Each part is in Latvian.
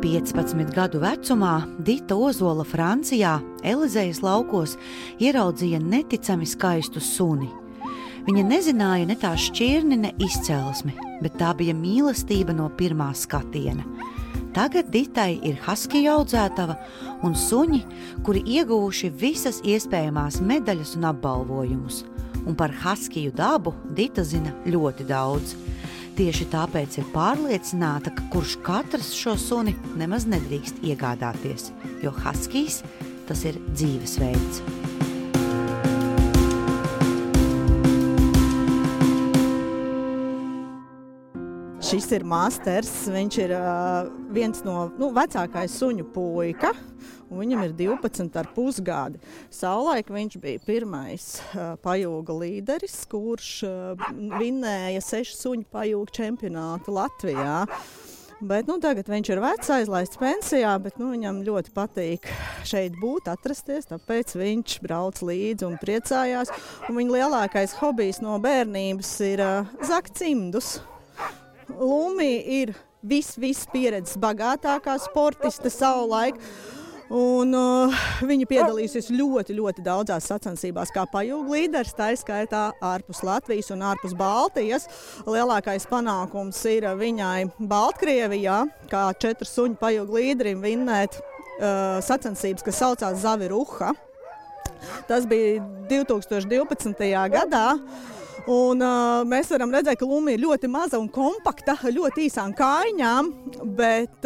15 gadu vecumā Dita Ozola Francijā, Elizejas laukos, ieraudzīja neticami skaistu suni. Viņa nezināja ne tā šķirni, ne izcelsmi, bet tā bija mīlestība no pirmā skatiena. Tagad Ditai ir haskiju audzētava un suņi, kuri ieguvuši visas iespējamās medaļas un apbalvojumus. Un par haskiju dabu Dita zina ļoti daudz. Tieši tāpēc ir pārliecināta, ka kurš katrs šo suni nemaz nedrīkst iegādāties, jo haskijs tas ir dzīvesveids. Šis ir Masters, viņš ir viens no vecākais suņu puika, un viņam ir 12,5 gadi. Savulaik viņš bija pirmais pajūga līderis, kurš vinnēja 6 suņu pajūga čempionātu Latvijā. Bet tagad viņš ir vecs, aizlaists pensijā, bet viņam ļoti patīk šeit būt, atrasties, tāpēc viņš brauc līdzi un priecājās. Un viņa lielākais hobijs no bērnības ir zakt cimdus. Lumi ir viss pieredzes bagātākā sportiste savulaik, un viņa piedalīsies ļoti daudzās sacensībās kā pajūga līderis, tā skaitā ārpus Latvijas un ārpus Baltijas. Lielākais panākums ir viņai Baltkrievijā, kā 4 suņu pajūga līderim vinnēt sacensības, kas saucās Zaviruha. Tas bija 2012. gadā. Un mēs varam redzēt, ka Luma ir ļoti maza un kompakta, ļoti īsām kājām, bet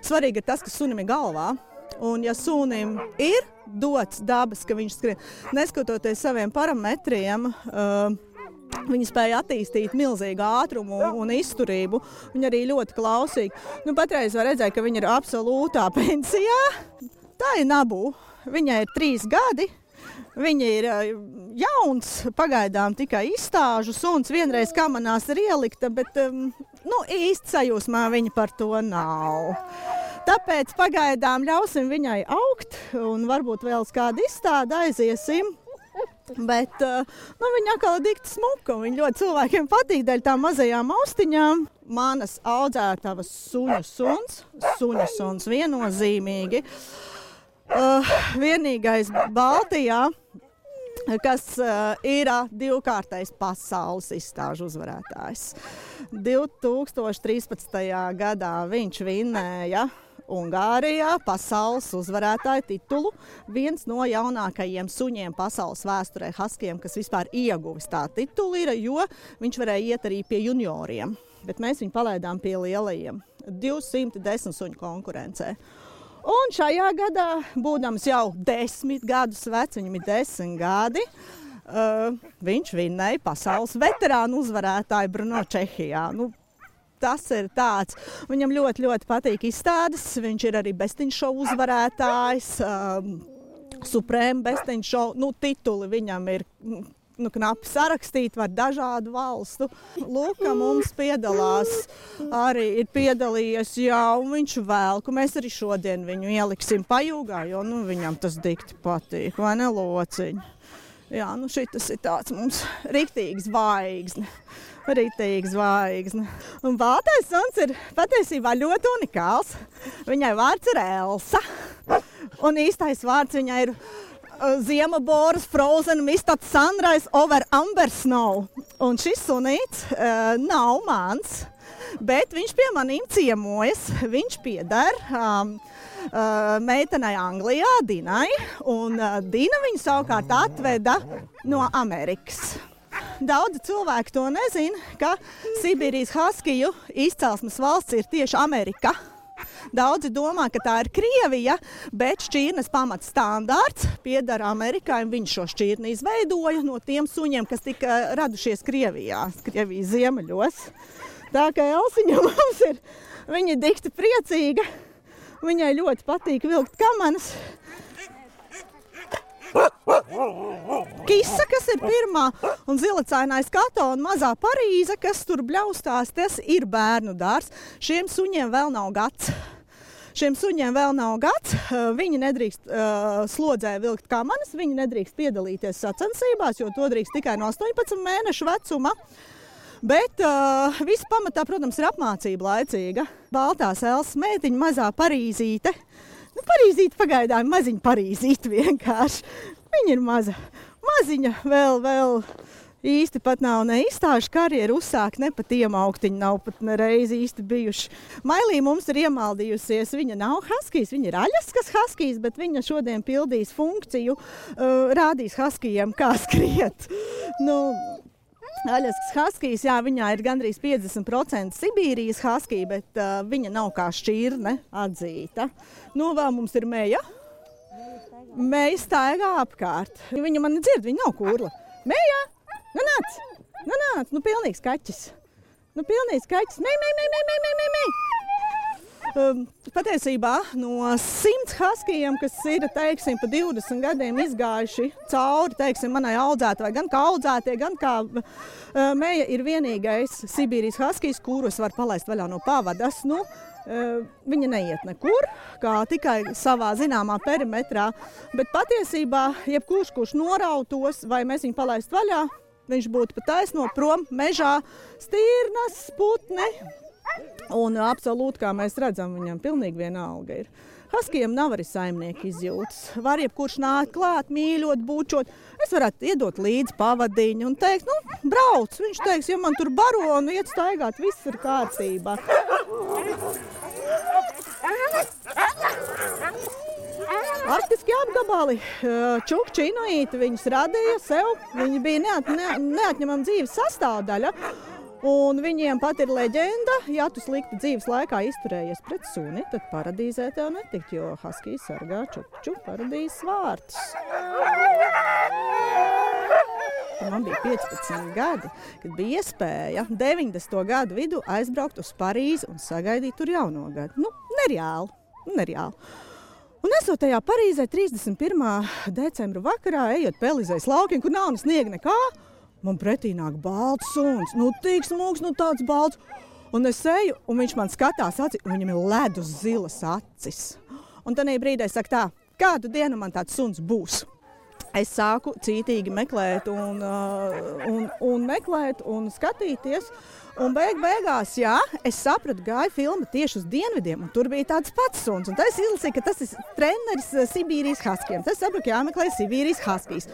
svarīgi ir tas, ka sunim ir galvā. Un ja sunim ir dots dabas, ka viņš skrien, neskatoties saviem parametriem, viņa spēja attīstīt milzīgu ātrumu un izturību. Viņa arī ļoti klausīga. Patreiz var redzēt, ka viņa ir absolūtā pensijā. Tā ir Nabu. Viņai ir 3 gadi. Viņa ir jauns, pagaidām tikai izstāžu suns, vienreiz kamanās ir ielikta, bet īsti sajūsmā viņa par to nav. Tāpēc pagaidām ļausim viņai augt un varbūt vēl uz kādu izstādi aiziesim. Bet viņa atkal ir dikti smuka, un viņa ļoti cilvēkiem patīk dēļ tām mazajām austiņām. Manas audzētavas suņu suns viennozīmīgi. Vienīgais Baltijā, kas ir 2-kārtais pasaules izstāžu uzvarētājs. 2013. gadā viņš vinnēja Ungārijā pasaules uzvarētāja titulu. Viens no jaunākajiem suņiem pasaules vēsturē haskijiem, kas vispār ieguvis tā titulu ir, jo viņš varēja iet arī pie junioriem. Bet mēs viņu palaidām pie lielajiem. 210 suņu konkurencē. Un šajā gadā, būdams jau 10 gadus vecs, viņam ir 10 gadi, viņš vinnēja pasaules veterānu uzvarētāju Brno Čehijā. Tas ir tāds. Viņam ļoti patīk izstādes. Viņš ir arī bestiņšovu uzvarētājs, Suprēma bestiņšovu. Tituli viņam ir knapi sarakstīti ar dažādu valstu. Lūka mums piedalās, arī ir piedalījies, un viņš velku. Mēs arī šodien viņu ieliksim pajūgā, jo viņam tas dikti patīk, vai ne, lociņi? Jā, šitas ir tāds mums riktīgs zvaigzne. Un baltais suns ir patiesībā ļoti unikāls. Viņai vārds ir Elsa, un īstais vārds viņai ir Ziemaboras Frozen Mistat Sunrise over Amber Snow. Un šis sunīts nav mans, bet viņš pie manīm ciemojas. Viņš pieder meitenei Anglijā, Dinai, un Dina viņu savukārt atveda no Amerikas. Daudzi cilvēki to nezina, ka Sibīrijas haskiju izcelsmes valsts ir tieši Amerika. Daudzi domā, ka tā ir Krievija, bet šķirnes pamatstandārts pieder Amerikai, un viņš šo šķirni izveidoja no tiem suņiem, kas tika radušies Krievijas ziemeļos. Tā kā Elsiņa mums ir, viņa ir dikti priecīga, viņai ļoti patīk vilkt kamanas. Kisa, kas ir pirmā, un zilacainais Kato un mazā Parīze, kas tur bļaustās, tas ir bērnu dārs. Šiem suņiem vēl nav gads. Viņi nedrīkst slodzē vilkt kamanas, viņi nedrīkst piedalīties sacensībās, jo to drīkst tikai no 18 mēnešu vecuma. Bet viss pamatā, protams, ir apmācība laicīga. Baltās Elsas meitiņa, mazā Parīzīte. Nu, Parīzīte pagaidām, maziņa Parīzīte vienkārši. Viņa ir maziņa, vēl īsti pat nav ne izstāžu karjeru uzsākt, ne pat iemauktiņi nav pat nereiz īsti bijuši. Mailī mums ir iemaldījusies, viņa nav haskijs, viņa ir aļaskas haskijs, bet viņa šodien pildīs funkciju, rādīs haskijiem, kā skriet. Nu, aļaskas haskijs, jā, viņā ir gandrīz 50% Sibīrijas haskija, bet viņa nav kā šķirne atzīta. Nu, vēl mums ir Meja. Meja staigā apkārt. Viņa mani dzird, viņa nav kurla. Meja! Nu nāc, nu pilnīgs kaķis. Mei. Patiesībā no 100 haskijiem, kas ir, teiksim, pa 20 gadiem izgājuši cauri, teiksim, manai audzētavai, gan kā audzētie, gan kā Meja ir vienīgais Sibīrijas haskijs, kuru es varu palaist vaļā no pavadas. Nu, viņa neiet nekur, kā tikai savā zināmā perimetrā, bet patiesībā jebkurš norautos, vai mēs viņu palaist vaļā, viņš būtu pa taisno prom mežā, stirnas, putni. Un absolūti, kā mēs redzam, viņam pilnīgi vienalga ir. Haskijiem nav arī saimnieka izjūtas. Var jebkurš nākt klāt, mīļot, bučot. Es varētu iedot līdzi pavadiņu un teikt, nu, brauc. Viņš teiks, ja man tur baro un iet staigāt, viss ir kārtībā. Arktiski apgabali, čukči inuīti, viņus radīja sev. Viņi bija neatņemama dzīves sastāvdaļa. Un viņiem pat ir leģenda, ja tu slikti dzīves laikā izturējies pret suni, tad paradīzē tev netikt, jo haskijs sargā čukču paradīzes vārtus. Man bija 15 gadi, kad bija iespēja 90. gadu vidu aizbraukt uz Parīzi un sagaidīt tur jauno gadu. Nu, nereāli. Un esot tajā Parīzē 31. decembra vakarā, ejot pa Elizejas laukiem, kur nav ne sniega nekā, man pretī nāk balts suns, nu tik smūgs, nu tāds balts. Un es eju, un viņš man skatās aci, un viņam ir ledus zilas acis. Un tanī brīdī es saku tā, kādu dienu man tāds suns būs? Es sāku cītīgi meklēt un meklēt un skatīties. Un beigās, jā, es sapratu, gāja filma tieši uz dienvidiem, un tur bija tāds pats suns. Un tas izlasīja, ka tas ir treneris Sibīrijas haskijiem. Tas sapratu, jāmeklē Sibīrijas haskijs.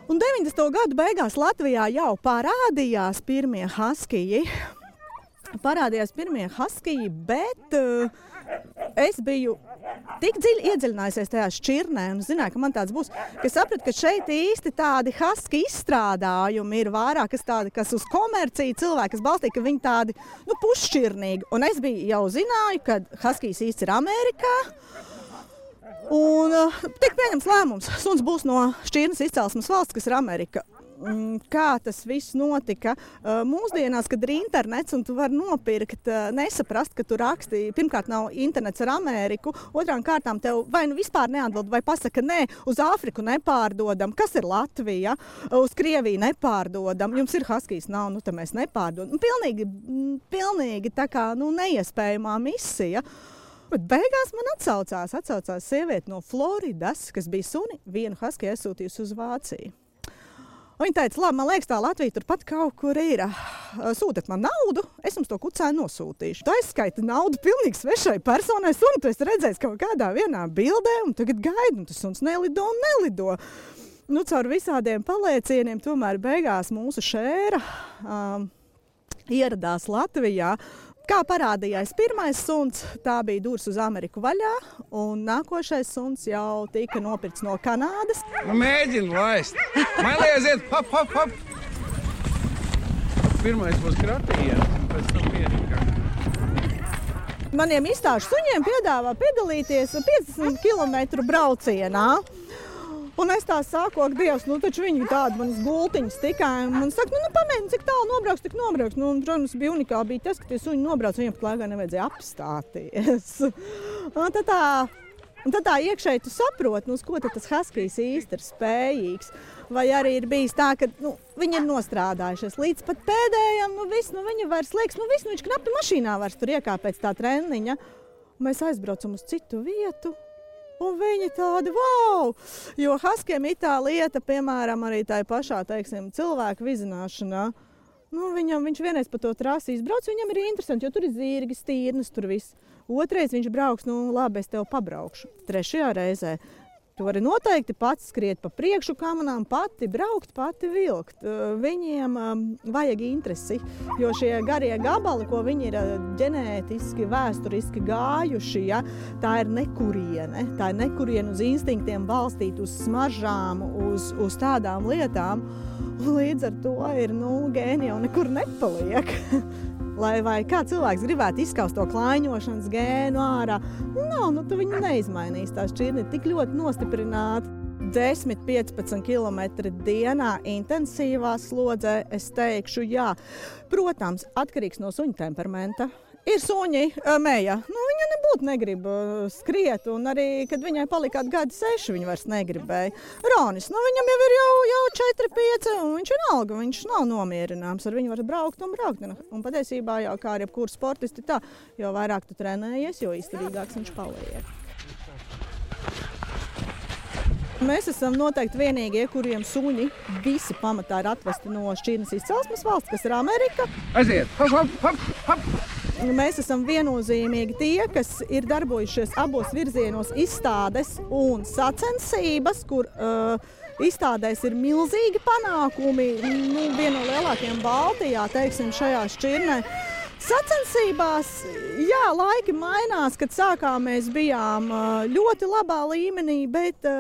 Un 90. gadu beigās Latvijā jau parādījās pirmie haskiji, bet es biju tik dziļi iedziļinājusies tajā šķirnē un zināju, ka man tāds būs, ka sapratu, ka šeit īsti tādi haski izstrādājumi ir vairāk, kas uz komerciju cilvēki, kas balstīja, ka viņi tādi, nu, pusšķirnīgi. Un es jau zināju, ka haskijs īsti ir Amerikā. Un tika pieņems lēmums. Suns būs no šķirnes izcelsmes valsts, kas ir Amerika. Kā tas viss notika? Mūsdienās, kad ir internets un tu vari nopirkt, nesaprast, ka tu raksti, pirmkārt nav internets ar Ameriku, otrām kārtām tev vai nu vispār neatbild, vai pasaka nē, uz Āfriku nepārdodam, kas ir Latvija, uz Krieviju nepārdodam, jums ir haskijs, nav, nu tad mēs nepārdodam. Pilnīgi tā kā, nu, neiespējamā misija. Bet beigās man atsaucās sieviete no Floridas, kas bija suni, vienu haskiju aizsūtījusi uz Vāciju. Viņa teica, labi, man liekas, tā Latvija turpat kaut kur ir. Sūtiet man naudu, es jums to kucēnu nosūtīšu. Tu aizskaiti naudu pilnīgi svešai personai, suni tu esi redzējis kaut kādā vienā bildē, un tagad gaidi, un tas suns nelido. Nu, caur visādiem paliecieniem tomēr beigās mūsu šēra ieradās Latvijā. Kā parādījās pirmais suns, tā bija durs uz Ameriku vaļā, un nākošais suns jau tika nopirkts no Kanādas. Nu, mēģinu laist. Man lieziet, hop. Pirmais būs kratījiens, un pēc tam pierikā. Maniem izstāžu suņiem piedāvā piedalīties 50 km braucienā. Un es tā saku, ak, Dievs, nu taču viņi tādi manas gultiņas tikai. Man saka, nu pamēģini, cik tālu nobrauks, tik nobrauks. Nu, un, protams, bija unikāli bija tas, ka tie suņi nobrauc, viņiem pat laikā nevajadzēja apstāties. Un tad tā iekšēji tu saproti, nu, uz ko tad tas haskijs īsti ir spējīgs. Vai arī ir bijis tā, ka viņi ir nostrādājušies līdz pat pēdējam, viņi vairs liekas, viņš knapi mašīnā vairs tur iekāp pēc tā treniņa. Un mēs aizbraucam uz citu vietu. Un viņi tādi, wow! Jo haskijiem ir tā lieta, piemēram, arī tā pašā, teiksim, cilvēku vizināšanā. Nu, viņš vienreiz pa to trasi izbrauc, viņam ir interesanti, jo tur ir zirgi, stīrnes, tur viss. Otrais viņš brauks, nu labi, es tev pabraukšu. Trešajā reizē tu vari noteikti pats skriet pa priekšu kamanām, pati braukt, pati vilkt. Viņiem vajag interesi, jo šie garie gabali, ko viņi ir ģenētiski, vēsturiski gājuši, ja, tā ir nekuriene. Tā ir nekuriene uz instinktiem balstīt, uz smaržām, uz tādām lietām. Un līdz ar to ir, gēni jau nekur nepaliek. Vai kā cilvēks gribētu izskaust to klaiņošanas gēnu ārā, tu viņu neizmainīs. Tā šķirne ir tik ļoti nostiprināta. 10-15 km dienā intensīvā slodzē, es teikšu, jā. Protams, atkarīgs no suņa temperamenta. Ir suņi, Meja, viņa nebūtu negrib skriet, un arī, kad viņai palika gadi 6, viņa vairs negribēja. Ronis, viņam jau ir jau 4-5, un viņš ir alga, viņš nav nomierināms, ar viņu var braukt. Un patiesībā jau kā ar jebkuru sportisti tā, jo vairāk tu trenējies, jo izturīgāks viņš paliek. Mēs esam noteikti vienīgie, kuriem suņi visi pamatā ir atvesti no šķirnes izcelsmes valsts, kas ir Amerika. Aiziet! Hop, hop, hop! Mēs esam viennozīmīgi tie, kas ir darbojušies abos virzienos izstādes un sacensības, kur izstādēs ir milzīgi panākumi, viena no lielākajiem Baltijā, teiksim, šajā šķirnē. Sacensībās, jā, laiki mainās, kad sākām mēs bijām ļoti labā līmenī, bet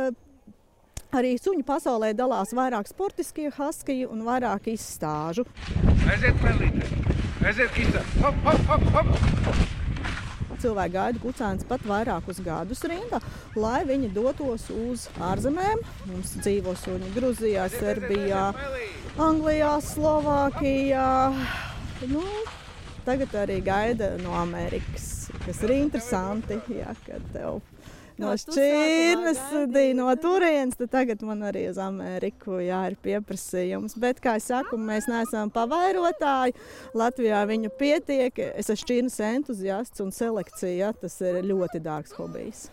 arī suņu pasaulē dalās vairāk sportiskie haskiji un vairāk izstāžu. Aiziet, Melīte! Aiziet, Isa! Hop, hop, hop, hop! Cilvēki gaida kucēnus pat vairākus gadus rindā, lai viņi dotos uz ārzemēm. Mums dzīvo suņi Gruzijā, Serbijā, Anglijā, Slovākijā. Tagad arī gaida no Amerikas, kas ir interesanti, jā, kad tev no šķirnes, no turienes, tad tagad man arī uz Ameriku ir pieprasījums. Bet, kā es saku, mēs neesam pavairotāji. Latvijā viņu pietiek. Es esmu šķirnes entuziasts un selekcija, tas ir ļoti dārgs hobijs.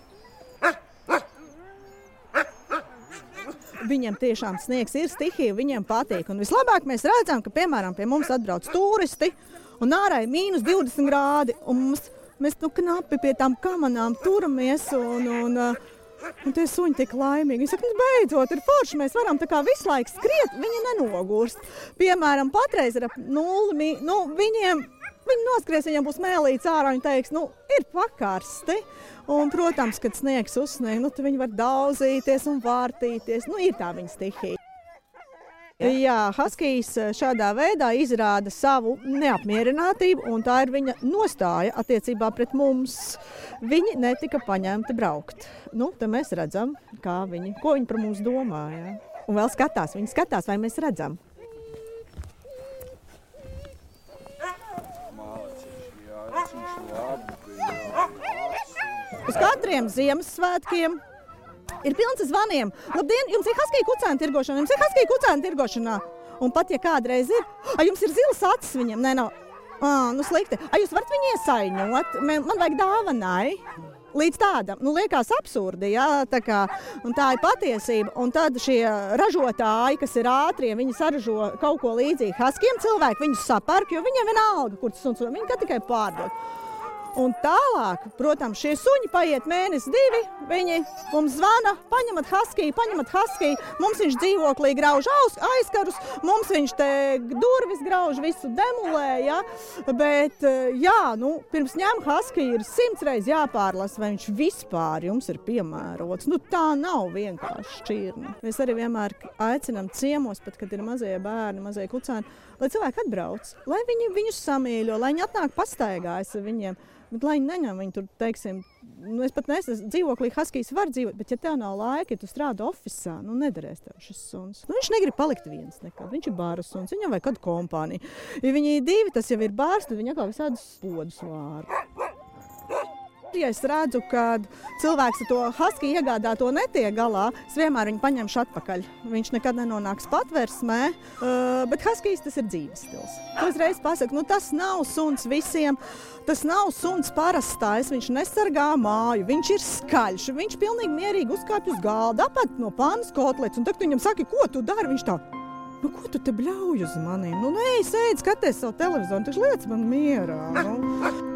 Viņiem tiešām sniegs ir stihija, viņiem patīk. Un vislabāk mēs redzam, ka, piemēram, pie mums atbrauc turisti un ārā ir -20 grādi. Un mēs knapi pie tām kamanām turamies un tie suņi tik laimīgi. Viņi saka, beidzot, ir forši, mēs varam tā kā visu laiku skriet, viņi nenogurst. Piemēram, patreiz ir ap 0, viņi noskries, viņiem būs mēlīts ārā, viņi teiks, ir pakarsti. Un, protams, kad sniegs uzsnieg, tad viņi var daudzīties un vārtīties, ir tā viņa stihija. Jā, haskijs šādā veidā izrāda savu neapmierinātību, un tā ir viņa nostāja attiecībā pret mums. Viņi netika paņemti braukt. Te mēs redzam, ko viņi par mums domā. Jā. Un vēl viņi skatās, vai mēs redzam. Uz katriem Ziemassvētkiem ir pilns ar zvaniem. Labdien, jums ir haskija kucēna tirgošanā? Jums ir haskija kucēna tirgošanā? Un pat, ja kādreiz ir, jums ir zilas acis viņam? Nē, nav. Slikti. Jūs varat viņu iesaiņot? Man vajag dāvanai. Līdz tādam, liekas absurdi, jā, un tā ir patiesība. Un tad šie ražotāji, kas ir ātrie, viņi saražo kaut ko līdzīgi haskijiem cilvēki, viņus sapērk, jo viņiem vienalga, kur tas suns, viņi tikai pārdod. Un tālāk, protams, šie suņi paiet mēnesi 2, viņi mums zvana, paņemat haskiju, mums viņš dzīvoklī grauž aizkarus, mums viņš te durvis grauž, visu demulē, ja? Bet, jā, pirms ņem haskiju ir 100 reizes jāpārlasa, vai viņš vispār jums ir piemērots. Tā nav vienkārši šķirne. Mēs arī vienmēr aicinām ciemos, pat kad ir mazie bērni, mazie kucēni, lai cilvēki atbrauc, lai viņi viņus samīļo, lai viņi atnāk pastaigājas ar viņiem. Bet, lai neņem viņu tur, teiksim, es pat neesmu dzīvoklī, haskijs var dzīvot, bet ja tev nav laika, ja tu strādā ofisā, nedarēs tev šis suns. Viņš negrib palikt viens nekad, viņš ir bāra suns, viņam vajag kādu kompāniju. Ja viņi ir 2, tas jau ir bārs, tad viņi atkal visādus podus vāra. Ja es redzu, ka cilvēks ar to haskiju iegādāto netiek galā, es vienmēr viņu paņemšu atpakaļ. Viņš nekad nenonāks patversmē, bet haskijs tas ir dzīves stils. To uzreiz pasaku, tas nav suns visiem, tas nav suns parastais, viņš nesargā māju, viņš ir skaļš, viņš pilnīgi mierīgi uzkāpj uz galda, apēd no pannas kotlets, un tagad viņam saka, ko tu dari, viņš tā Nu, ko tu te bļauj uz maniem? Nu, ej, sēdi, skaties savu televizoru, taču liec man mierā. Nu.